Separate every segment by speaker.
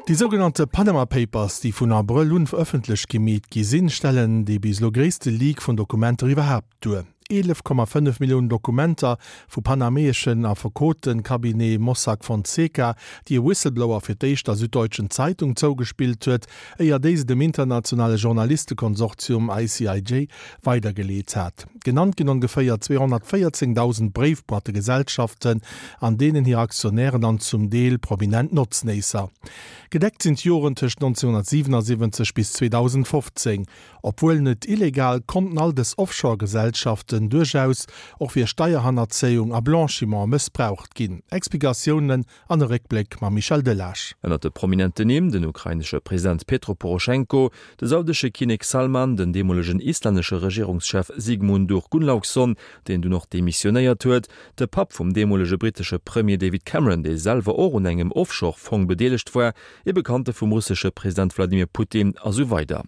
Speaker 1: Déi sougenannte Panama Papers, déi vun Abrëll un ëffentlech gemeet gi sinn, stellen dee bis elo gréisste Leak vun Dokumenter iwwerhaapt duer. 11,5 Milliounen Dokumenter vu panameeschen Affekote-Cabinet Mossack Fonseca, déi e Whistleblower fir d'éischt der Süddeutschen Zeitung zougespillt huet, éier déi se dem internationale Journalistekonsortium ICIJ weidergeleet hat. Genannt ginn ongeféier 214.000 Bréifboîtegesellschaften, an deenen hir Aktionären an zum Deel prominent Notznéisser. Gedeckt sinn d'Joren tëscht 1977 bis 2015. Obwuel net illegal, konnten all dës Offshore-Gesellschaften duerchaus och fir Steierhannerzéiung a Blanchiment mëssbraucht ginn. Explikatiounen an e Réckbléck mam Michel Delage.
Speaker 2: Ënnert de prominenten Nimm, den ukrainesche President Petro Poroschenko, de saudesche Kinnek Salman, den deemolegen islännesche Regierungschef Sigmundur Gunnlaugsson, deen dunn och demissionéiert huet, de Papp vum deemolege brittesche Premier David Cameron, dee selwer och un engem Offshore-Fong bedeelegt war, ee Bekannte vum russesche President Wladimir Putin a sou weider.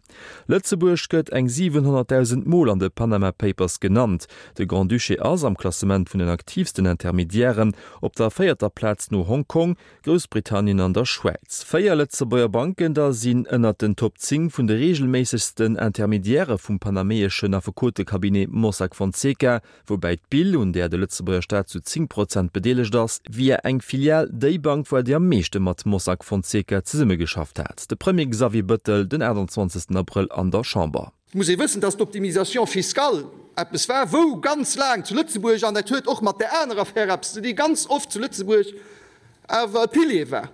Speaker 2: Lëtzebuerg gëtt eng 700.000 Mol an de Panama Papers genannt. De Grand-Duché ass am Klassement vun den aktiivsten Intermediairen op der véierter Plaz no Hongkong, Groussbritannien an der Schwäiz. Véier Lëtzebuerger Banken da sinn ënnert den Top 10 vun de reegelméissegsten Intermediairë vum panameeschen Affekotecabinet Mossack Fonseca, woubäi d'BIL, un där de Lëtzebuerger Staat zu 10 Prozent bedeelegt ass, via eng Filial déi Bank war, déi am meeschte mat Mossack Fonseca zesummegeschafft hat. De Premier Xavier Bëttel den 28 Abrëll an der Chamber.
Speaker 3: Et muss ee wëssen, dass d'Optimisation fiscale eppes war, wou ganz laang zu Lëtzebuerg, an dat huet och mat där anerer Affär eppes ze dinn, ganz oft zu Lëtzebuerg awer e Pilier war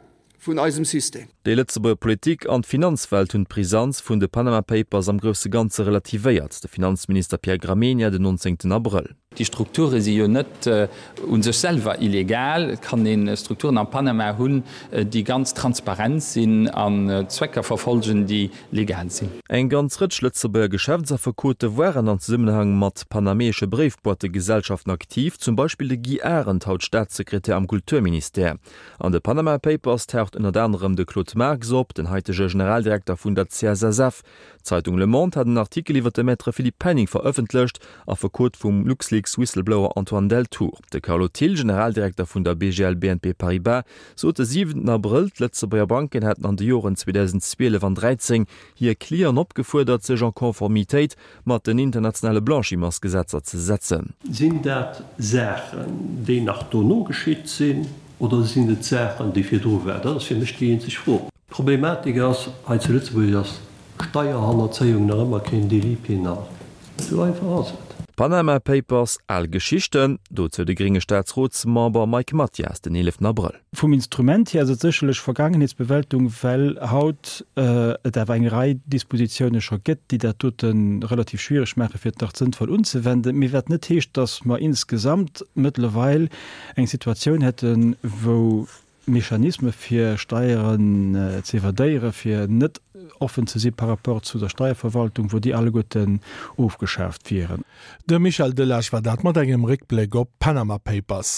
Speaker 3: vun eisem System.
Speaker 2: Déi Lëtzebuerger Politik an d'Finanzwelt hunn d'Brisanz vun de Panama Papers am grousse Ganze relativéiert, de Finanzminister Pierre Gramegna den 19 Abrëll.
Speaker 4: Déi Strukture si jo net u sech selwer illegal. Et kann ee Strukturen am Panama hunn, déi ganz transparent sinn an Zwecker verfolgen, déi legal sinn.
Speaker 2: Eng ganz Rëtsch Lëtzebuerger Geschäftsaffekote waren an Zesummenhang mat panameesche Bréifboîtegesellschaften aktiv, zum Beispill de Guy Arendt, haut Staatssekretär am Kulturministère. An de Panama Papers taucht ënnert anerem de Claude Marx op, den haitege Generaldirekter vun der CSSF. D'Zeitung Le Monde hat en Artikel iwwer de Maître Philippe Penning verëffentlecht, Affekot vum LuxLeaks-Whistleblower Antoine Deltour. De Carlo Thill, Generaldirekter vun der BGL BNP Paribas, sot de siwenten Abrëll, d'Lëtzebuerger Banken hätten an de Joren 2012 an 13 hir Clienten opgefuerdert, sech en Conformitéit mat den internationale Blanchimentsgesetzer ze setzen.
Speaker 5: Sinn dat Saachen, déi nach dono geschitt sinn, oder sinn et Saachen, déi virdru waren? Dat ass fir mech déi eenzeg Fro. D'Problematik ass, hei zu Lëtzebuerg ass Steierhannerzéiung nach ëmmer keen Délit pénal. Esou einfach ass et.
Speaker 2: Panama Papers, al Geschichten, dozou de grénge Staatsrotsmember Mike Mathias den 11 Abrëll.
Speaker 6: Vum Instrument hier ass et sécherlech Vergaangenheetsbewältung, well haut et awer eng Rei Dispositiounen scho gëtt, déi dat dote relativ schwierig maachen, fir et nach sënnvoll unzewenden. Mee wat net heescht, dass mer insgesamt mëttlerweil eng Situatioun hätten, wou Mechanisme fir Steieren ze evadéieren, fir net offen ze si par rapport zu der Steierverwaltung, wou déi alleguerten ofgeschaaft wieren.
Speaker 1: De Michel Delage war dat mat engem Réckbléck op d'Panama Papers.